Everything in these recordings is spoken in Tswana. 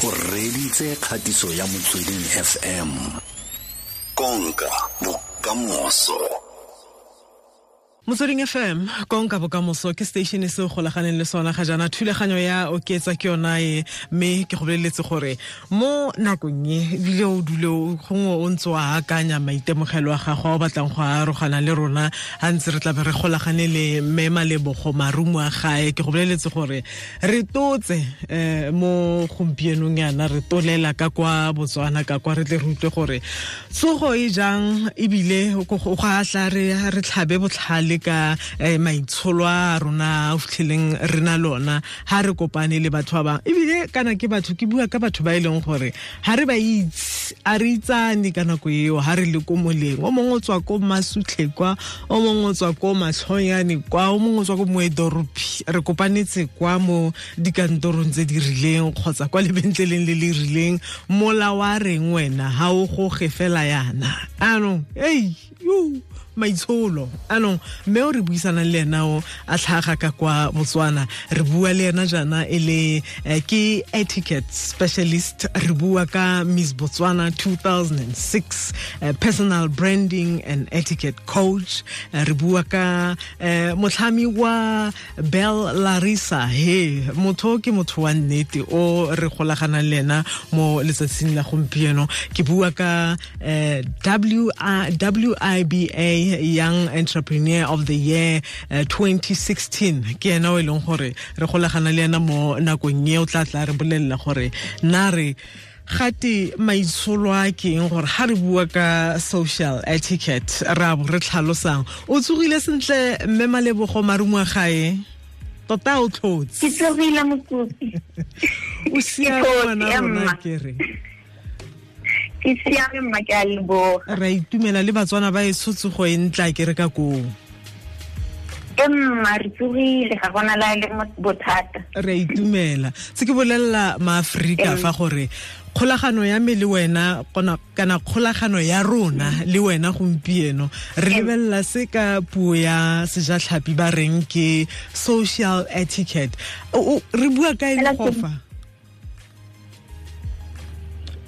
O reditse kgatiso ya Motsweding FM. Konka bokamoso. Motsweding FM, konka bokamoso ke station se o golaganeng le sona ga jaana. Thulaganyo ya Oketsa ke yona e, mme ke go boleletse gore mo nakong e ebile o dule gongwe o ntse o akanya maitemogelo a gago a o batlang go arogana le rona ga ntse re tlabe re golagane le mme Malebogo Marumo a gae. Ke go boleletse gore re totse mo gompienong yana re tolela ka kwa Botswana ka kwa re tle re utlwe gore tsogo e jang, ebile go a tla re tlhabe botlhale ka maitsholo a rona a fitlheleng re na lona ha re kopane le batho ba bangwe. Ebile kana ke batho, ke bua ka batho ba e leng gore ha re ba itse, a re itsane ka nako eo ha re le ko moleng. O mongwe o tswa ko Masutlhe kwa, o mongwe o tswa ko Matlhonyane kwa, o mongwe o tswa ko Moedoropi. Re kopanetse kwa mo dikantorong tse di rileng kgotsa kwa lebentleleng le le rileng. Mola wa reng wena ha o goge fela yana anong, ei yo maitsholo anong. Mme o re buisanang le ena o a tlhaga ka kwa Botswana, re bua le ena jaana e le ke etiquette specialist. Re bua ka Miss Botswana 2006, personal branding and etiquette coach. Re bua ka motlhami wa Bell Larissa. He motho ke motho wa nnete o re golaganang le ena mo letsatsing la gompieno. Ke bua ka WIBA Young Entrepreneur of the Year 2016. Ke ena o e leng gore re golagana le ena mo nakong e o tla tla re bolelela gore na re gate maitsholo a ke eng, gore ha re bua ka social etiquette re a bo re tlhalosang. O tsogile sentle mme Malebogo Marumo a gae? Tota o tlhotse? Ke tsogile mokopi. O siame ngwana rona ke re? Ke siame mma, ke a leboga. Re a itumela le Batswana ba e tshotsogo e ntla ke re ka koo. E mma, re tsogile, ga gona la le bothata. Re a itumela. Se ke bolelela maAforika fa gore kgolagano ya me le wena kana kgolagano ya rona le wena gompieno re lebelela se ka puo ya sejatlhapi ba reng ke social etiquette. Re bua ka eng go fa?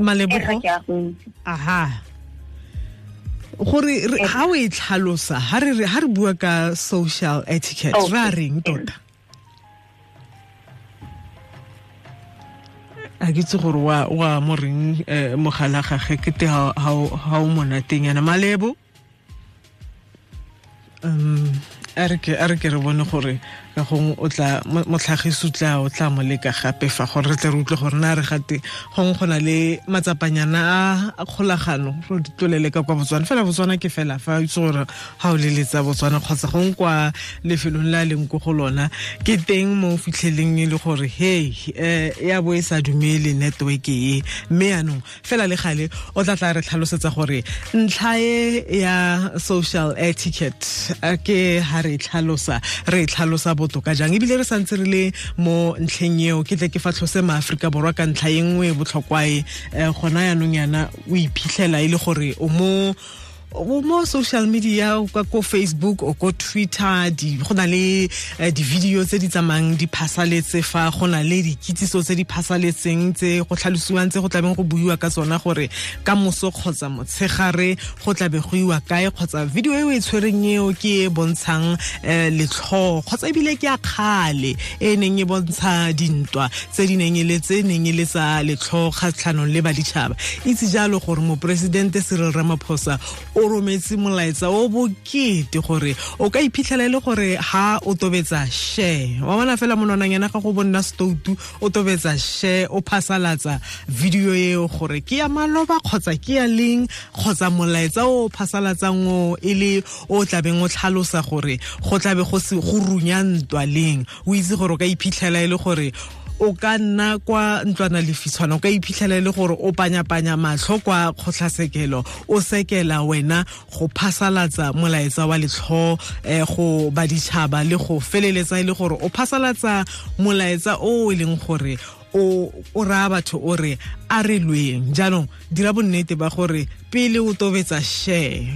Malebogo, aha, gore ha o e tlhalosa ha re bua ka social etiquette ra reng tota? A ke itse gore wa mo reng mogala gage ke te ha o monateng yana. Malebo, a re ke re bone gore ka gongwe o tla motlhagiso o tla mo leka gape fa gore re tle re utlwe gore na re gate gongwe go na le matsapanyana a kgolagano re di tlolele ka kwa Botswana. Fela Botswana ke fela fa o itse gore ga o leletsa Botswana kgotsa gongwe kwa lefelong le a leng ko go lona ke teng mo o fitlheleng e le gore hey ya bo e sa dumele network e. Mme yanong fela le gale o tla tla re tlhalosetsa gore ntlha e ya social etiquette ke ha re tlhalosa botoka jang. Ebile re santse re le mo ntlheng eo ke tle ke fa tlhose maAforika Borwa ka ntlha e nngwe e botlhokwa e gona yanong yana o iphitlhela e le gore o mo social media ka ko Facebook o ko Twitter, go na le di-video tse di tsamayang di phasaletse fa, go na le dikitsiso tse di phasaletseng tse go tlhalosiwang tse go tlabeng go buiwa ka tsona gore ka moso kgotsa motshegare go tlabe go iwa kae, kgotsa video e o e tshwereng eo ke e bontshang letlhoo kgotsa ebile ke a kgale e neng e bontsha dintwa tse di neng e le tse neng e le tsa letlhoo kgatlhanong le baditšhaba. Itse jalo gore moporesidente Cyril Ramaphosa o rometse molaetsa o bokete gore o ka iphitlhela e le gore ha o tobetsa share, wa bona fela monwananyana ga go bonna stoutu o tobetsa share o phasalatsa video eo gore ke ya maloba kgotsa ke ya leng, kgotsa molaetsa o phasalatsang o e le o tlabeng o tlhalosa gore go tlabe go se go runya ntwa leng. O itse gore o ka iphitlhela e le gore o ka nna kwa ntlwana lefitshwana, o ka iphitlhela e le gore o panyapanya matlho kwa kgotlasekelo o sekela wena go phasalatsa molaetsa wa letlho go baditšhaba le go feleletsa e le gore o phasalatsa molaetsa o e leng gore o raya batho o re a re lweng. Jaanong dira bonnete ba gore pele o tobetsa share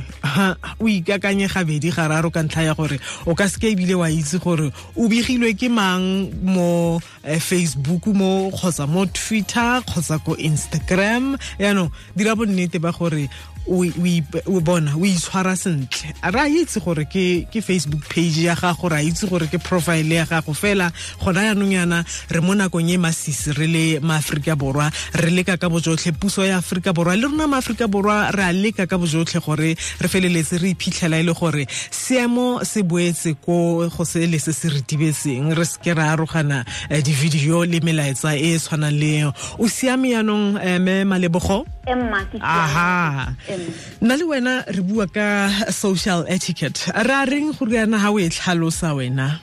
o ikakanye gabedi gararo ka ntlha ya gore o ka seke ebile wa itse gore o begilwe ke mang mo Facebook mo kgotsa mo Twitter kgotsa ko Instagram. Jaanong dira bonnete ba gore o bona o itshwara sentle. Re a itse gore ke Facebook page ya gago, re a itse gore ke profile ya gago, fela gona jaanong yana re mo nakong e masisi re le maAforika Borwa, re leka ka bojotlhe, puso ya Aforika Borwa le rona maAforika Borwa re a leka ka bojotlhe gore re feleletse re iphitlhela e le gore seemo se boetse ko go se le se se retibetseng, re seke ra arogana di-video le melaetsa e e tshwanang le eo. O siame jaanong mme Malebogo? Aha. Nna le wena re bua ka social etiquette. Re a reng gore yana ha o e tlhalosa wena?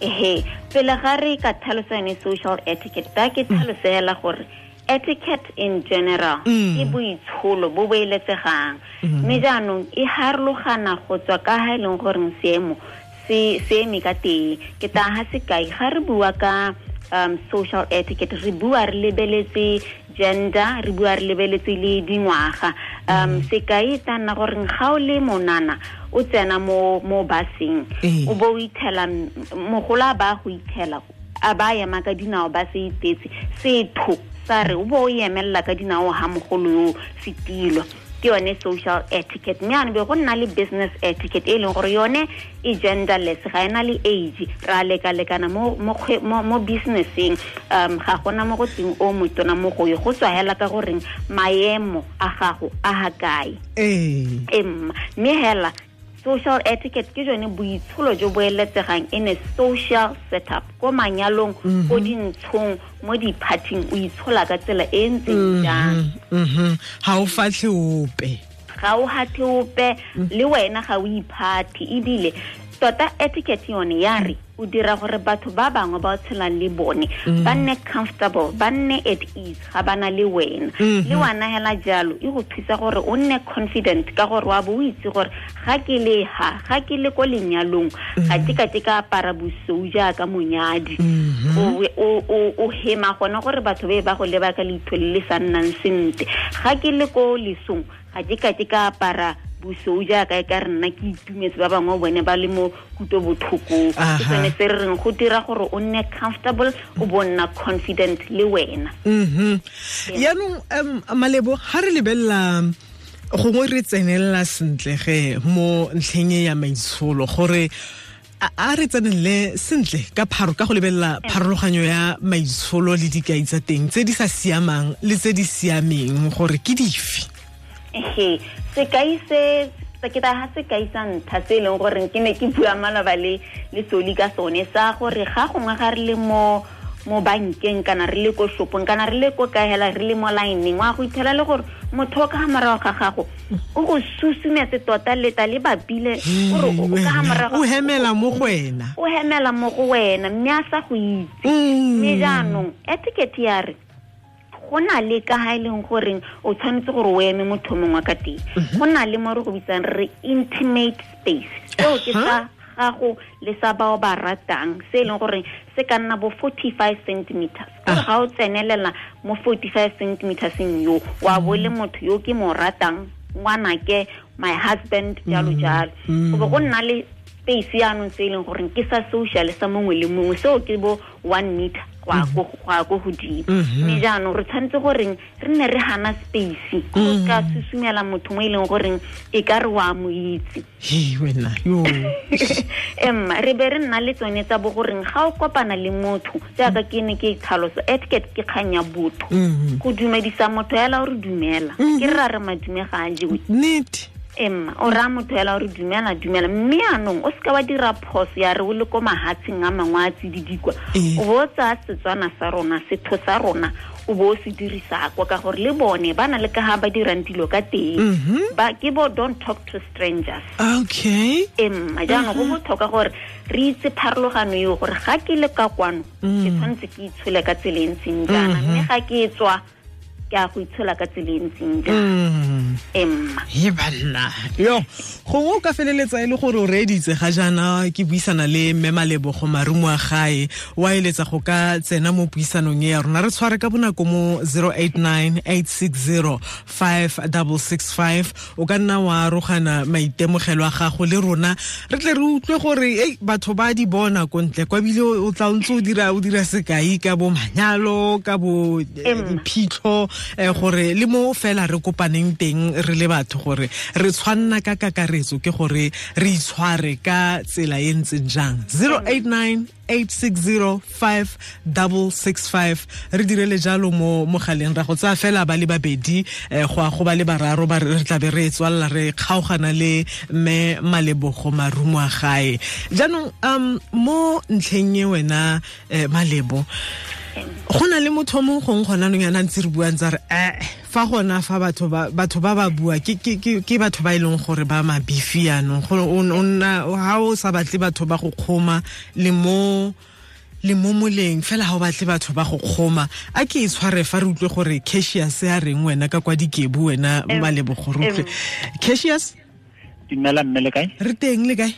Ehe, pele ga re ka tlhalosa yone social etiquette, ba ke tlhalosela gore etiquette in general ke boitsholo bo bo eletsegang. Mme jaanong e harologana go tswa ka ha e leng goreng seemo se eme ka teng. Ke tla ha sekai, ga re bua ka social etiquette, re bua re lebeletse gender, re bua re lebeletse le dingwaga. Sekai ta nna gore ga o le monana o tsena mo baseng, o bo o ithela mogola ba go ithela a ba ema ka dinao ba se itetse setho sa re o bo o emella ka dinao ha mogolo yo setilo. Ke yone social etiquette. Mme ane be go nna le business etiquette e leng gore yone e genderless, ga ena le age, ra lekalekana mo businesseng. Ga gona mo go teng o motona mo go yo, go tswa hela ka goreng maemo a gago a ha kae. Mme hela social etiquette ke jone boitsholo jo bo eletsegang in a social setup, ko manyalong, ko dintshong, mo di-partying, o itshola ka tsela e ntseng jang. Ga o fatlhe ope. Ga o hatlhe ope, le wena ga o iphathe. Ebile tota etiquette yone ya re o dira gore batho ba bangwe ba o tshelang le bone ba nne comfortable, ba nne at ease ga ba na le wena. Le wena hela jalo e go thusa gore o nne confident ka gore wa bo o itse gore ga ke le ha, ga ke le ko lenyalong, ga ke ka ke ka apara bosou jaaka monyadi. O hema gona gore batho be ba go leba ka leitho le le sa nnang sentle. Ga ke le ko lesong, ga ke ka ke ka apara bosou jaaka e ka re nna ke itumetse, ba bangwe bone ba le mo kutlobotlhokong. Ke sone se re reng go dira gore o nne comfortable, o bo nna confident le wena. Yaanong Malebo, ga re lebelela gongwe re tsenelela sentle ge mo ntlheng e ya maitsholo, gore a re tsenelele sentle ka pharo ka go lebelela pharologanyo ya maitsholo le dikai tsa teng tse di sa siamang le tse di siameng gore ke dife. Ehe, sekai se ke ta ha sekai sa ntlha se e leng gore ke ne ke bua maloba le Soli ka sone, sa gore ga gongwe ga re le mo bankeng kana re le ko shopong kana re le ko kae hela re le mo lineng, wa go ithela le gore motho o ka ha morago ga gago o go susumetse tota leta le bapile gore o ka ha morago o hemela mo go wena, o hemela mo go wena mme a sa go itse. Mme jaanong etiquette ya re go na le ka ha e leng goreng o tshwanetse gore o eme motho mongwe ka teng. Go na le mo re go bitsang re intimate space, seo ke sa gago le sa bao ba ratang, se e leng gore se ka nna bo 45 centimeters. Gore ga o tsenelela mo 45 centimeterseng yo, wa bo le motho yo ke mo ratang, ngwanake, my husband, jalo jalo. Go bo go nna le space yaanong se e leng goreng ke sa social sa mongwe le mongwe, seo ke bo 1 meter go ya ko godimo. Mme jaanong re tshwanetse goreng re nne re hana space, go ka susumela motho mo e leng goreng e ka re wa mo itse. Wena yo. Emma re be re nna le tsone tsa bo goreng ga o kopana le motho, jaaka ke ne ke tlhalosa etiquette ke kgang ya botho. Go dumedisa motho hela o re dumela, ke re ra re madume ga a jewe. Nnete. Emma o raya motho hela o re dumela dumela, mme anong o seka wa dira phoso ya re o le ko mahatsheng a mangwe a tsididikwa, o bo o tsaya Setswana sa rona, setho sa rona, o bo o se dirisa kwa, ka gore le bone ba na le ka ha ba dirang dilo ka teng. Ba ke bo don't talk to strangers. Okay. Emma jaanong go botlhokwa gore re itse pharologano eo, gore ga ke le ka kwano ke tshwanetse ke itshole ka tsela e ntseng jaana, mme ga ke tswa ke a go itshola ka tsela e ntseng jang. Emma he banna yo gongwe o ka feleletsa e le gore o reeditse ga jaana ke buisana le mme Malebogo Marumoagae wa eletsa go ka tsena mo puisanong e ya rona re tshware ka bonako mo 089 860 5665 o ka nna wa arogana maitemogelo a gago le rona re tle re utlwe gore ei batho ba di bona ko ntle kwa bile o tla ntse o dira sekai ka bo manyalo ka bo diphitlho gore le mo fela re kopaneng teng re le batho gore re tshwanna ka kakaretso ke gore re itshware ka tsela e ntseng jang. 089 860 5665 re direle jalo mo mogaleng ra go tsaya fela ba le babedi go a go ba le bararo ba re tla be re tswalla re kgaogana le mme Malebogo Marumoagae. Jaanong mo ntlheng e wena Malebo go na le motho mongwe gongwe gona nong yana ntse re buang tsa re fa gona fa batho ba bua ke batho ba e leng gore ba mabifi yanong gore o nna ha o sa batle batho ba go kgoma le mo moleng fela ha o batle batho ba go kgoma a ke e tshware fa re utlwe gore Cassius a reng wena ka kwa Dikebu wena Malebogo re utlwe. Cassius, dumela mme le kae? Re teng le kae?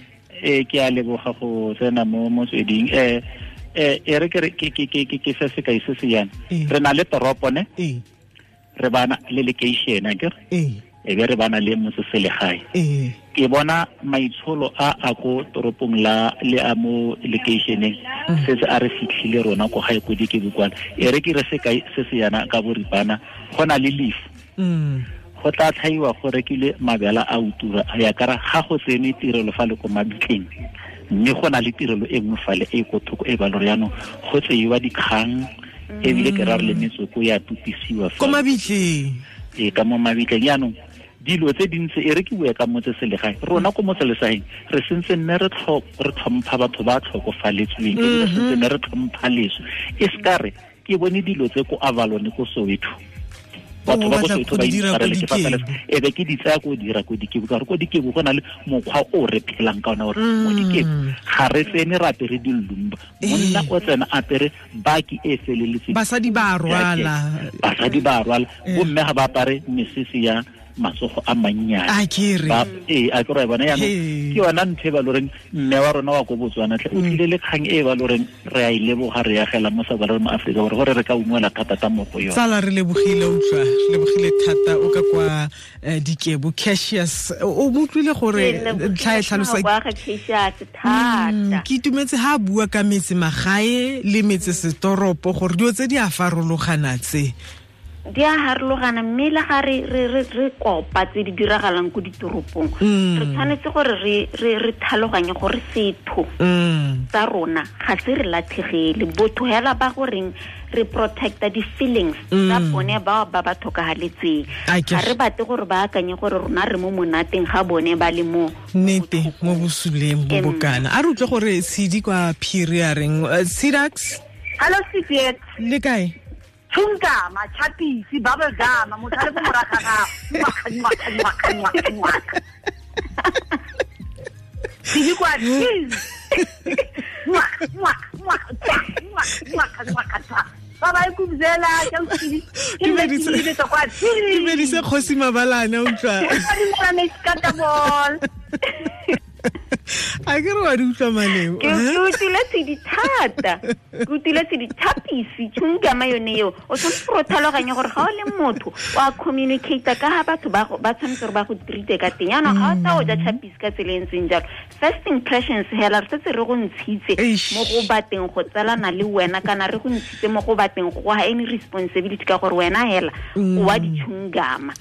Ke a leboga go tsena mo motsweding. E re ke se sekai se se yana re na le toropo ne re bana le location akere e be re bana le motseselegae. Ke bona maitsholo a ko toropong la le a mo locationeng se se a re fitlhile rona ko gae ko Dikebu kwana. E re ke re sekai se se yana ka boripana go na le leaf go tla tlhaiwa go rekile mabela a utura ya kara ga go tsene tirelo fa le ko mabitleng mme go na le tirelo e nngwe fale e ko thoko e ba lore jaanong go tseiwa dikgang ebile ke ra re le metsoko ya tupisiwa ko mabitleng e ka mo mabitleng. Jaanong dilo tse dintsi e re ke bue ka motseselegae rona ko motselesaeng re sentse nne re tlhompha batho ba tlhokofaletsweng ebile re sentse nne re tlhompha leso e se ka re ke bone dilo tse ko Avalon ko Soweto batho ba ko Soweto ba itshwarele ke fa e be ke di tsaya ko dira ko Dikebu ka gore ko Dikebu go na le mokgwa o re phelang ka ona gore mo Dikebu ga re tsene re apere dilumba monna o tsena apere baki e feleletseng basadi ba rwala bomme ga ba apare mesese ya matsogo a mannyane a ke re bona jaanong ke yona ntho e ba loreng mme wa rona wa ko Botswana tlhe o tlile le kgang e ba loreng re a e leboga re agela mo sa ba mo Afrika Borwa gore re ka ungwela thata mo go yone. Tsala re lebogile utlwa re lebogile thata o ka kwa Dikebu. Cassius o mo utlwile gore ntlha e tlhalosa ke itumetse ha bua ka metse magae le metse setoropo gore dilo tse di a farologana tse di a harologana mme le ga re kopa tse di diragalang ko ditoropong re tshwanetse gore re tlhaloganye gore setho tsa rona ga se re latlhegele botho hela ba goreng re protecta di-feelings tsa bone bao ba ba tlhokagaletseng ga re batle gore ba akanye gore rona re mo monateng ga bone ba le mo nnete mo bosuleng bo bokana. A re utlwe gore Tshidi kwa Phiri a reng. Sidax, hello Sidiet, le kae? Chungama, chapisi, bubble gum, motho a le ko morago ga gago. Tshidi kwa cheese. Ba ba ikubzela ke Tshidi. Ke medise kwa Tshidi. Ke medise Kgosi Mabalane utlwa. A ke re wa di utlwa Malebo. Ke utlwile Tshidi thata. Ke utlwile Tshidi thapisi chungama yone eo. O tshwanetse gore o tlhaloganye gore ga o le motho o a communicate ka ga batho ba tshwanetse gore ba go treat ka teng. Jaanong ga o tla o ja chapisi ka tsela e ntseng jalo. First impressions hela re setse re go ntshitse mo go bateng go tsalana le wena kana re go ntshitse mo go bateng go ga any responsibility ka gore wena hela o wa di chungama.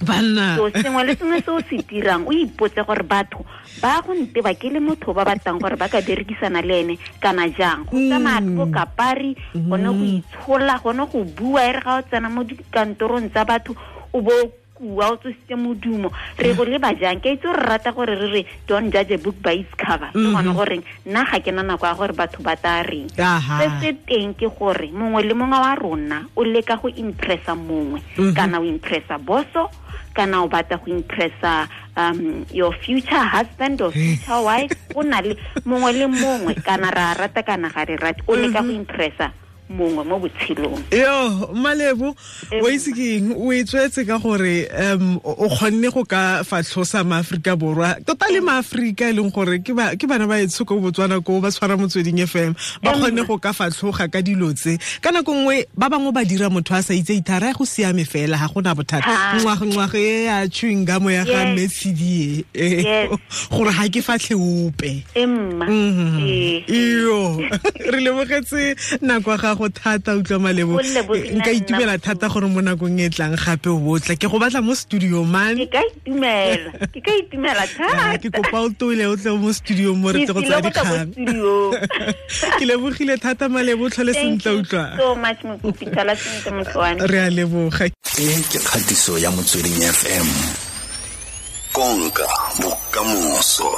So sengwe le sengwe se o se dirang o ipotse gore batho ba go nteba ke le motho ba batlang gore ba ka berekisana le ene kana jang. Go tsamaya ko kapari gone go itshola gone go bua e re ga o tsena mo dikantorong tsa batho o bo kua o tsositse modumo re go leba jang. Ke itse re rata gore re re don't judge a book by its cover ke gone goreng nna ga ke na nako ya gore batho ba tla reng. Se se teng ke gore mongwe le mongwe wa rona o leka go impressa mongwe kana o impressa boso kana o batla go impressa your future husband or future wife. O na le mongwe le mongwe kana ra rata kana ga re rate o leka go impressa mongwe mo botshelong. Yo, Malebo, o itse ke eng, o e tswetse ka gore o kgonne go ka fatlhosa maAforika Borwa, tota le maAforika e leng gore ke bana ba etsho ko Botswana ko ba tshwara Motsweding FM, ba kgonne go ka fatlhoga ka dilo tse. Ka nako nngwe ba bangwe ba dira motho a sa itse ithara go siame fela ga gona bothata. Ngwaga e ya chewing gum ya ga Messi e gore ga ke fatlhe ope. Iyo, re lebogetse nako ya gago thata utlwa Malebo. Nka itumela thata gore mo nakong e tlang gape o botla ke go batla mo studio man. Ke ka itumela thata. Ke kopa o tole o tle mo studio mo re tle go tsaya dikgang. Ke lebogile thata Malebo, tlhole sentle utlwa. So much Mokopi, tlhola sentle motho wa me. Re a leboga. E ke kgatiso ya Motsweding FM. Konka bokamoso.